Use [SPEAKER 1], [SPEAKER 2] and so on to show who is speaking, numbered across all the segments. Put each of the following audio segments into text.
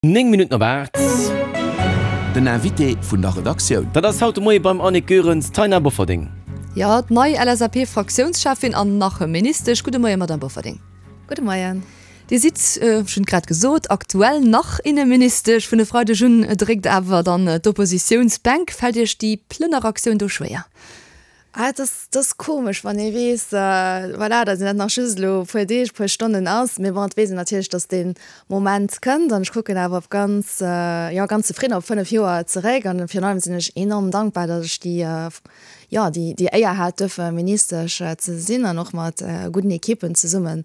[SPEAKER 1] 9 Minutten op 8.
[SPEAKER 2] Den Invité vun der Redaktioun.
[SPEAKER 1] Dat ass haut de Moie beim Annick Goerens d'Taina Bofferding.
[SPEAKER 3] Jo, d'nei LSAP-Fraktiounscheffin an nach Ministesch. Gudde Moien, Madamm Bofferding.
[SPEAKER 4] Gudde Moien.
[SPEAKER 3] Dir sidd, ech hunn et grad gesot, aktuell nach Inneministesch. Vun e Freideg un dréckt awer dann d'Oppositiounsbänk. Fält Iech déi Plënneraktioun do schwéier?
[SPEAKER 4] Ah, et ass, et ass komesch, wann ee weess, voilà, datt een dat nach just elo e puer Deeg, e puer Stonnen ass. Mee bon, et weess een natierlech, datt dee Moment kënnt. An ech kucken awer op ganz, jo, ganz zefridden op 5 Joer zeréck. An virun allem sinn ech enorm dankbar, datt ech déi, jo, déi, déi Éier hat, duerfe Ministesch ze sinn an och mat gudden Ekippen zesummen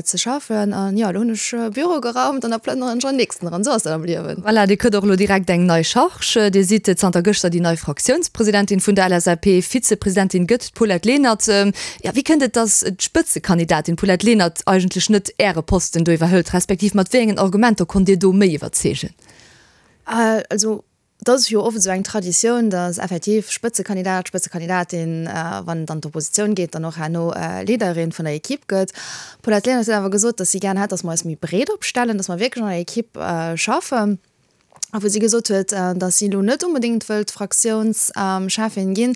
[SPEAKER 4] ze schaffen. An jo, elo hunn ech Büro geraumt an da plënneren ech an den nächsten eran. Esou ass dat am Liewen.
[SPEAKER 3] Voilà, Dir kritt och elo direkt eng nei Charge. Dir sidd zanter gëschter déi nei Fraktiounspresidentin vun der LSAP. Vizepresidentin gëtt d'Paulette Lenert. Jo, wéi kënnt et, datt d'Spëtzekandidatin Paulette Lenert eigentlech net Äre Posten do iwwerhëlt, respektiv mat wéi engen Argumenter konnt Dir do méi iwwerzeegen?
[SPEAKER 4] Also Et ass jo oft esou eng Traditioun, datt effektiv Spëtzekandidat, Spëtzekandidatin, wann et an d'Oppositioun geet, dann och herno Leaderin vun der Ekipp gëtt. D'Paulette Lenert huet awer gesot, datt si gären hätt, datt mer eis méi breet opstellen, datt mer wierklech an der Ekipp schaffen. A wou si gesot huet, datt si elo net onbedéngt wëllt Fraktiounscheffin ginn.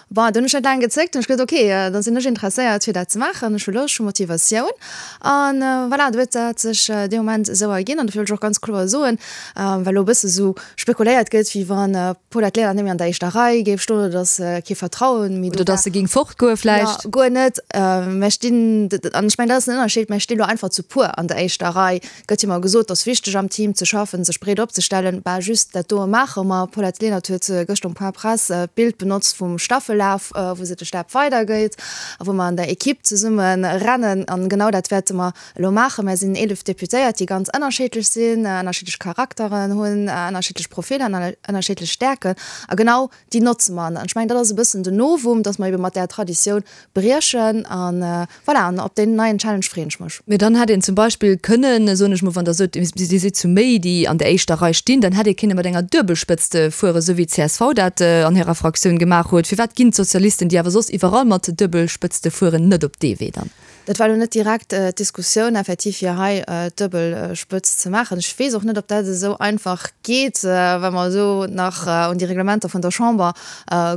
[SPEAKER 4] Bon, do hunn ech net laang gezéckt, hunn ech gesot, ok, da sinn ech interesséiert fir dat ze maachen, ech hu Loscht, ech hu Motivatioun. An voilà, do huet dat sech dee Moment esou erginn. An dofir wëll ech och ganz kloer soen, well elo e bësse sou spekuléiert gëtt, wéi wann d'Paulette Lenert net méi an der éischter Rei géif stoen oder datt kee Vertrauen méi
[SPEAKER 3] do war. Oder datt se géing fortgoe vläicht.
[SPEAKER 4] Jo, guer net. Mär stinn, an ech mengen, dat ass den Ënnerscheed, mär sti lo einfach zu puer an der éischter Rei. Gëtt jo mol gesot, et ass wichteg am Team ze schaffen, sech breet opzestellen. Bah, just dat doe maache mer. D'Paulette Lenert huet gëschter um Point Presse d'Bild benotzt vum Staffellaf, wou se de Stab weidergëtt a wou mer an der Equipe zesumme rennen. An genau dat wäerte mer elo maachen. Mer sinn 11 Deputéiert, déi ganz ënnerscheedlech sinn, ënnerschiddlech Charakteren hunn, ënnerschiddlech Profiller an ënnerschiddlech Stäerken. A genau déi notze mer. An ech mengen, dat ass e bëssen den Novum, dass mer ebe mat där Traditioun briechen. An voilà, an op deen neien Challenge freeën ech mech.
[SPEAKER 3] Mee dann hätt een zum Beispill kënnen, soen ech mol, wann Der sot, Dir sidd zu méi, déi an der éischter Rei stinn, dann hätt ee kënne mat enger Duebelspëtzt fueren, esou wéi d'CSV dat an hirer Fraktioun gemaach huet. Firwat ginn d'Sozialisten, déi awer soss iwwerall mat Duebelspëtzte fueren, net op dee Wee dann?
[SPEAKER 4] Dat war elo net direkt d'Diskussioun, effektiv fir hei d'Duebelspëtz ze maachen. Ech weess och net, ob dat esou einfach geet, well mer esou nach un déi Reglementer vun der Chamber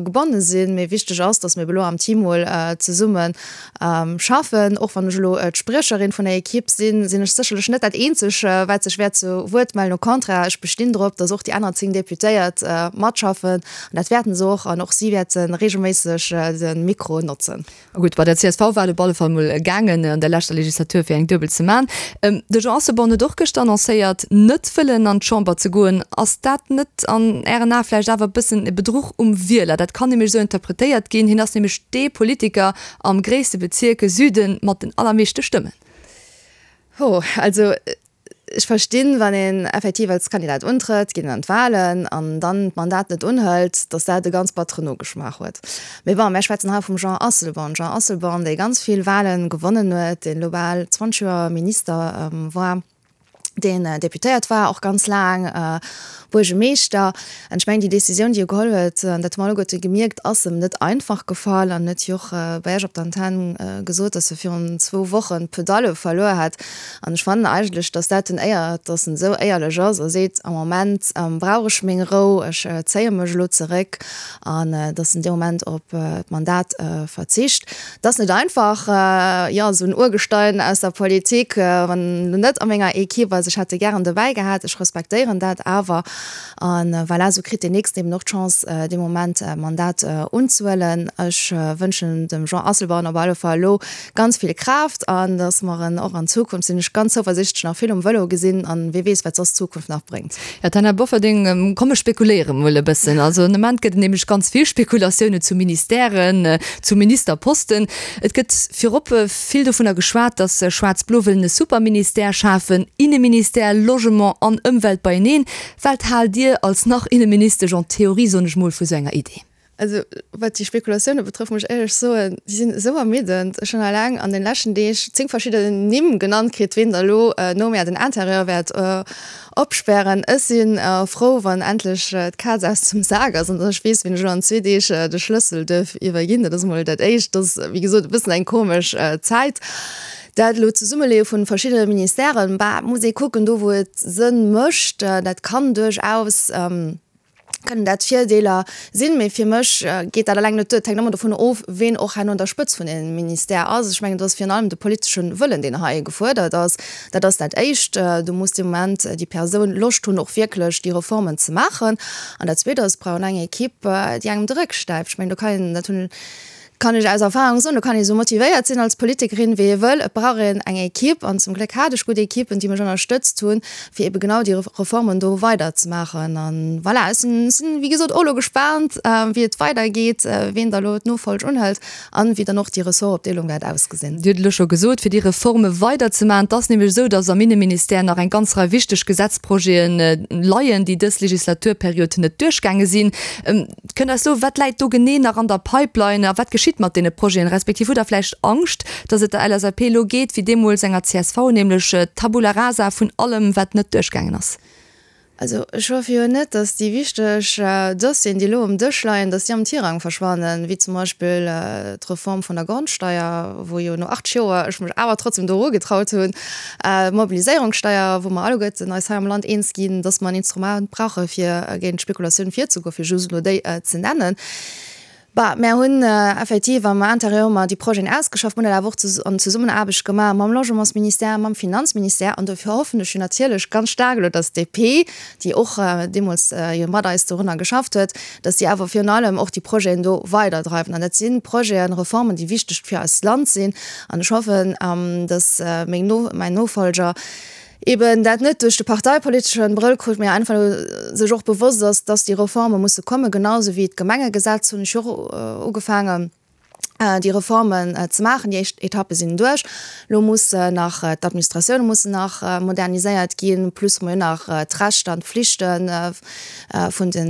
[SPEAKER 4] gebonne sinn. Mee wichteg ass, datt mir ebe elo am Team mol zesumme schaffen. Och wann ech elo d'Spriecherin vun der Ekipp sinn, sinn ech sécherlech net dat Eenzeg, wat sech wäert zu Wuert mellen. Au contraire, ech bestinn drop, datt och déi aner 10 Deputéiert matschaffen. An dat wäerten se och. An och si wäerte reegelméisseg de Mikro notzen.
[SPEAKER 3] Gutt, bei der csv war et op alle Fall mol gaangen an der leschter Legislatur fir eng Duebel ze man. De Jean Asselborn huet och gëschter annoncéiert, net wëllen an d'Chamber ze goen. Ass dat net an Ären Ae vläicht awer e bëssen e Bedruch um Wieler? Dat kann nämlech esou interpretéiert ginn. Hien ass nämlech dee Politiker am gréisste Bezierk Süden mat den allermeeschte Stëmmen.
[SPEAKER 4] Ho, also Ech verstinn, wann een effektiv als Kandidat untrëtt, geet een an d'Wahlen an dann d'Mandat net unhëlt, datt dat e ganz batteren Nogeschmaach huet. Mee bon, mär schwätzen hei vum Jean Asselborn. Jean Asselborn, dee ganz vill Wahlen gewonnen huet, deen elo bal 20 Joer Minister war, deen Deputéiert war och ganz laang, Buergemeeschter. An ech mengen, déi Décisioun, déi e geholl huet, an dat hu mer alleguerte gemierkt, ass em net einfach gefall. An huet jo och bei Iech op der Antenn gesot, datt e virun zwou Wochen d'Pedalle verluer hätt. An ech fannen eigentlech, datt dat en éiert, datt en esou éierlech ass a seet, am Moment brauch ech meng Rou, ech zéie mech elo zeréck, an datt en dee Moment op d'Mandat verzicht. Et ass net einfach, jo, esou en Urgestein aus der Politik, wann en elo net a menger Equipe ass. Ech hätt e gären dobäi gehat, ech respektéieren dat awer. A voilà, esou kritt deen Nächsten eben och d'Chance, dee Moment Mandat unzehuelen. Ech wënschen dem Jean Asselborn op alle Fall elo ganz vill Kraaft an dass mer en och an Zukunft, sinn ech ganz zouversichtlech, nach vill um Vëlo gesinn. An wie weess, wat soss d'Zukunft nach bréngt.
[SPEAKER 3] Jo, Taina Bofferding, komm ech spekuléiere mol e bëssen. Also den Ament gëtt et nämlech ganz vill Spekulatiounen zu Ministèren, zu Ministerposten. Et gëtt virop vill dovunner geschwat, datt Schwaarz-Blo wëllen e Superministère schafen, Inneministère, Logement an Ëmwelt beieneen. Wat haalt Dir als nach-Inneministesch en théorie, soen ech mol, vu sou enger Idee?
[SPEAKER 4] Also wat déi Spekulatioune betrëfft, muss ech éierlech soen, déi sinn esou ermiddend. Ech hunn eleng an den leschten Deeg 10 verschidden Nimm genannt kritt, ween da elo no mär den Interieur wäert opspären. Ech si frou, wann endlech d'Kaz aus dem Sak ass an dass ech weess, wien ech elo an zwee Deeg de Schlëssel duerf iwwerginn. Dat ass emol dat Éischt. Dat ass, wéi gesot, e bëssen eng komesch Zäit. Dat elo d'Zesummeleeë vun verschiddene Ministèren, bah, muss ee kucken, do wou et Sënn mécht, dat kann duerchaus, kënnen dat Virdeeler sinn, mee fir mech geet dat eleng net duer. Et hänkt ëmmer dovun of, ween och herno un der Spëtz vun deem Ministère ass. Ech mengen, et ass virun allem de politesche Wëllen, deen hei gefuerdert ass. Dat ass dat Éischt. Do muss dee Moment déi Persoun Loscht hunn, och wierklech déi Reformen ze maachen. An dat Zweet ass, et brauch een eng Equipe, déi engem de Réck stäipt. Ech mengen, do kann een, dat hunn, kann ech aus Erfahrung soen, do kann ee sou motivéiert sinn als Politikerin, wéi ee wëll, et brauch een eng Equipe. An zum Gléck hat ech gutt Equipen, déi mech ënnerstëtzt hunn, fir ebe genau déi Reformen do weiderzemaachen. An voilà, ech sinn, sinn wéi gesot och elo gespaant, wéi et weidergeet, ween da elo d'Nofolg unhëlt an wéi dann och déi Ressortopdeelung wäert ausgesinn.
[SPEAKER 3] Dir hutt elo scho gesot, fir déi Reforme weiderzemaachen. Et ass nämlech esou, datt am Inneministère nach eng ganz Rei wichteg Gesetzprojete leien, déi dës Legislaturperiod net duerchgaange sinn. Kënnt eis soen, wat läit do genee nach an der Pipeline a wat geschitt mat deene Projeten? Respektiv hutt Der vläicht Angscht, datt et der LSAP elo geet wéi deemools enger csv, nämlech Tabula rasa vun allem, wat net duerchgaangen ass?
[SPEAKER 4] Also ech hoffe jo net, datt déi wichteg Dossieren, déi elo um Dësch leien, datt déi am Tirang verschwannen, wéi zum Beispill d'Reform vun der Grondsteier, wou jo no 8 Joer ech mech awer trotzdem do erugetraut hunn, D'Mobiliséierungssteier, wou mer alleguerten eis hei am Land eens ginn, dass mer en Instrument brauche fir géint d'Spekulatioun virzegoen, fir just elo déi ze nennen. Bah, mär hunn effektiv am Intérieur hu mer déi Projeten ausgeschafft, mer hunn dat awer och an Zesummenaarbecht gemaach mam Logementsministère, mam Finanzministère. An dofir hoffen ech jo natierlech ganz staark elo, dass d'DP, déi och deemools jo mat eis dorunner geschafft huet, dass déi awer virun allem och déi Projeten do weiderdreiwen. An dat si Projeten, Reformen, déi wichteg fir eist Land sinn. An ech hoffen, dass meng No, mäin Nofolger eben dat net duerch de parteipoliteschen Brëll kuckt, mä einfach sech och bewosst ass, dass déi Reforme musse kommen, genau esou wéi d'Gemengegesetz hunn ech jo och ugefaangen. déi Reformen ze maachen. Déi éischt Etappe sinn duerch. Elo muss nach d'Administratioune mussen nach moderniséiert ginn, plus hu mer jo nach d'Rechter an d'Flichte vun de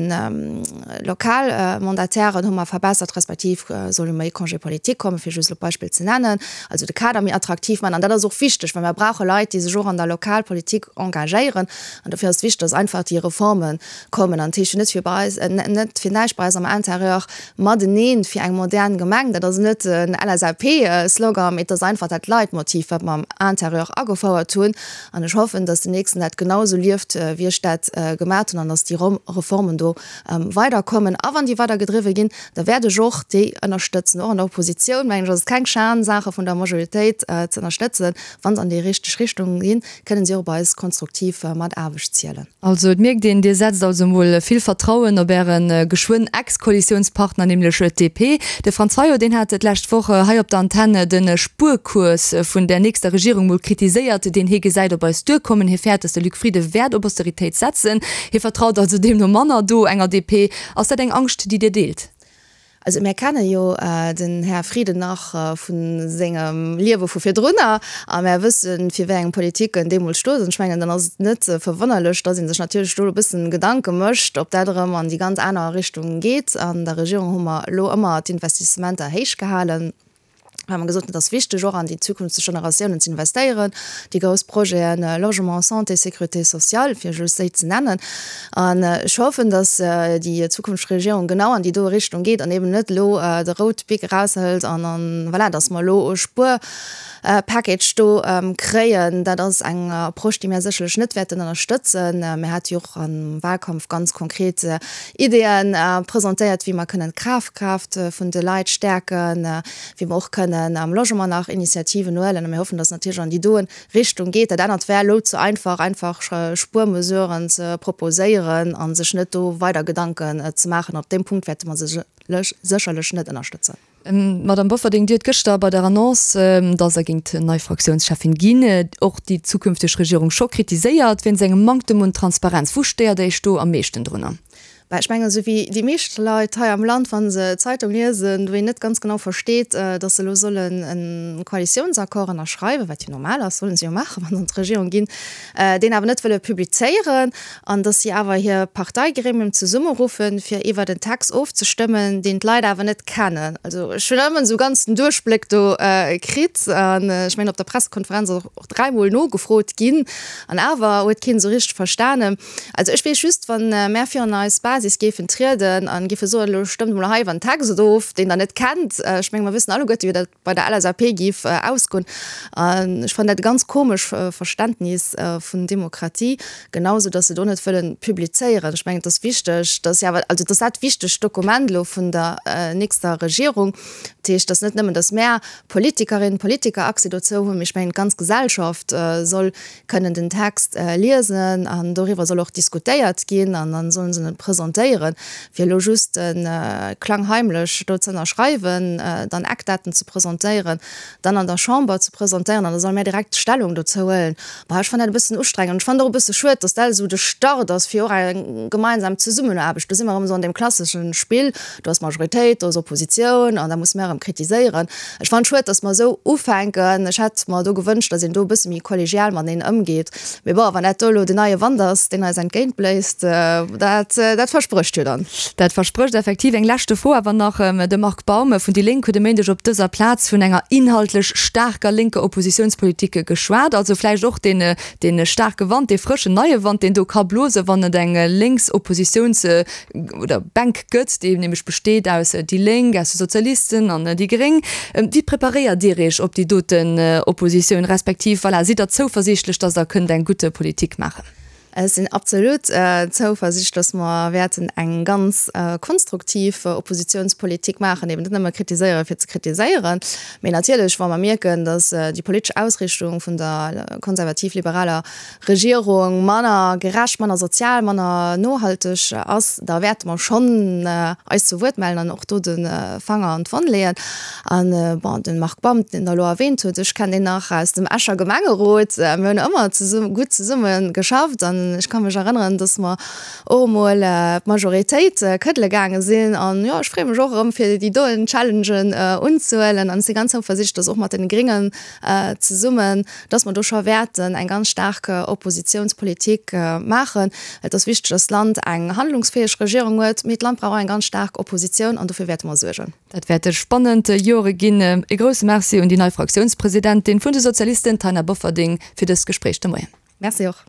[SPEAKER 4] Lokalmandatairen hu mer verbessert, respektiv soll jo méi Congé politique kommen, fir just elo d'Beispill ze nennen. Also de Kader méi attraktiv maachen. An dat ass och wichteg, well mer brauche Leit, déi sech och an der Lokalpolitik engagéieren. An dofir ass et wichteg, dass einfach déi Reforme kommen. An dat heescht jo net fir bei eis, net fir näischt bei eis am Intérieur mateneen fir eng modern Gemeng. Dat ass net en LSAP-Slogan, mee et ass einfach dat Leitmotiv, wat mer am Intérieur agefouert hunn. An ech hoffen, dass den Nächsten dat genau esou lieft, wéi ech dat gemat hunn, an dass déi Reformen do weiderkommen. A wann déi weidergedriwwe ginn, da wäert ech och déi ënnerstëtzen. Och an der Oppositioun, mengen ech, ass et keng Schan, Saache vun der Majoritéit ze ënnerstëtzen. Wa se an déi richteg Richtung ginn, kënnen si och op eis konstruktiv Mataarbecht zielen.
[SPEAKER 3] Also et mierkt een, Dir setzt also emol vill Vertrauen op Äre geschwënn Ex-Koalitiounspartner, nämlech d'DP. De Franz Fayot, deen hat d'lescht Woch hei op der Antenn de Spuerkurs vun der nächster Regierung mol kritiséiert, deen hie gesäit op eis duerkommen. Hie fäert, datt de Luc Frieden wäert op Austeritéit setzen. Hie vertraut also deemno manner do enger DP. Ass dat eng Angscht, déi Dir deelt?
[SPEAKER 4] Also mär kenne jo den Här Frieden nach vu sengem Liewe vu virdrunner a mär wëssen, fir wéi eng Politik en deemools stoot. An ech mengen, dann ass et net verwonnerlech, datt ee sech natierlech do e bëssen Gedanke mécht, ob dat erëm an déi ganz aner Richtung geet. An der Regierung hu mer elo ëmmer d'Investissementer héich gehalen. well mer gesot hunn, et ass wichteg och an déi zukünfteg Generatiounen ze investéieren, déi grouss Projeten Logement, Santé, Sécurité sociale, fir just déi ze nennen. An ech hoffen, datt déi zukünfteg Regierung genau an déi doe Richtung geet an eben net elo de rout Bic eraushëlt an an voilà, datt mer elo e Spuerpackage do kréien. Dat ass eng Approche, déi mir sécherlech net wäerten ënnerstëtzen. Mir hate jo och am Wahlkampf ganz konkret Ideeën presentéiert, wéi mer kënnen d'Kafkraaft vun de Leit stäerken, wéi mer och kënnen am Logement nach Initiativen huelen. A mir hoffen, dass et natierlech an déi doen Richtung geet. Dat anert wär elo ze einfach, einfach Spuermesuren ze proposéieren a sech net do weider Gedanken ze maachen. Op deem Punkt wäerte mer se sécherlech net ënnerstëtzen.
[SPEAKER 3] Madamm Bofferding, Dir hutt gëschter bei der Annonce, datt Der géingt nei Fraktiounscheffin ginn, och déi zukünfteg Regierung scho kritiséiert wéinst engem Manktem un Transparenz. Wou stéiert Iech do am meeschten drunner?
[SPEAKER 4] Bah, ech mengen, esou wéi déi meescht Leit hei am Land, wa se d'Zeitung liesen, wou een net ganz genau versteet, datt se elo sollen e Koalitiounsaccord ënnerschreiwen, wat jo normal ass, sollen se jo maachen, wa se an d'Regierung ginn, deen awer net wëlle publizéieren. an dass si awer hir Parteigremium zesummeruffen, fir iwwert en Text ofzestëmmen, deen d'Leit awer net kennen. Also ech hunn ëmmer esou ganz den Duerchbléck do kritt an ech mengen op der Pressekonferenz ass och dräimol nogefrot ginn an awer huet keen esou richteg verstanen. Also ech weess just, wa mär virun eis Basis. Basis géifen trieden a géife soen, elo stëmmt emol hei iwwer en Text of, deen Der net kennt. Ech menge mer wëssen alleguerte wéi dat bei der LSAP géif ausgoen. An ech fannen dat e ganz komesch Verständnis vun Demokratie, genau sou datt se do net wëllen publizéieren. Ech mengen et ass wichteg, datt jo awer, also et ass dat wichtegt Dokument elo vun der nächster Regierung. Dat heescht, datt net nëmmen, datt mär Politikerinnen, Politiker Accès dozou hunn, mee ech mengen d'ganz Gesellschaft soll kënnen den Text liesen an doriwwer soll och diskutéiert ginn an dann sollen se en presentéieren. Fir elo just klangheimlech do ze ënnerschreiwen, dann Eckdaten ze presentéieren, dann an der Chamber ze presentéieren an da solle mär direkt Stellung dozou huelen, bah, ech fannen dat e bëssen ustrengend an ech fannen et och e bësse schued, dass dat esou de Start ass fir och eng gemeinsam Zesummenaarbecht. Do si mer erëm esou an deem klassesche Spill, do ass Majoritéit, do ass Oppositioun an da musse mär erëm kritiséieren. Ech fannen et schued, dass mer esou ufänken. Ech hätt mer do gewënscht, dass een do e bësse méi kollegial mateneen ëmgeet. Mee bon, wann dat do elo den neie Wand ass, deen eis entgéintbléist, dat, dat versprécht jo dann.
[SPEAKER 3] Dat versprécht effektiv. Eng leschte Fro awer nach, De Marc Baum vun déi Lénk huet e Méindeg op dëser Plaz vun enger inhaltlech staarker lénker Oppositiounspolitik geschwat. Also vläicht och deen, dee staarke Wand, dee frëschen neie Wand, deen do ka blosen, wann et eng lénks Oppositiouns oder Bänk gëtt, déi nämlech besteet aus déi Lénk, aus de Sozialisten an déi Gréng. Wéi preparéiert Dir Iech op déi doten Oppositioun, respektiv, voilà, sidd Der zouversiichtlech, datt Der kënnt eng gutt Politik maachen?
[SPEAKER 4] Ech sinn absolut zouversiichtlech, datt mer wäerten eng ganz konstruktiv Oppositionspolitik maachen, eben net nëmme kritiséiere fir ze kritiséieren, mee natierlech, wa mer mierken, datt déi politesch Ausrichtung vun der konservativ-liberaler Regierung manner gerecht, manner sozial, manner nohalteg ass, da wäerte mer schonn eis zu Wuert mellen an och do de Fanger an d'Wonn leeën. An, bon, de Marc Baum, deen Der elo erwähnt hutt, ech kennen deen nach aus dem Escher Gemengerot. Mir hunn ëmmer zesumme, gutt zesumme geschafft an ech ka mech erënneren, dass mer och emol d'Majoritéit këddele gaange sinn. An, jo, ech freeë mech och erëm, fir déi doen Challengen unzehuelen an ech si ganz zouversiichtlech, dass och mat deene Gréngen zesummen, dass mer do scho wäerten eng ganz staark Oppositionspolitik maachen. Et ass wichteg, dass d'Land eng handlungsfäeg Regierung huet, mee d'Land brauch och eng ganz staark Oppositioun an dofir wäerte mer suergen.
[SPEAKER 3] Dat wäerte spannend Jore ginn. E grousse Merci un déi nei Fraktiounspresidentin vun de Sozialisten, Taina Bofferding, fir dëst Gespréich de Moien.
[SPEAKER 4] Merci och.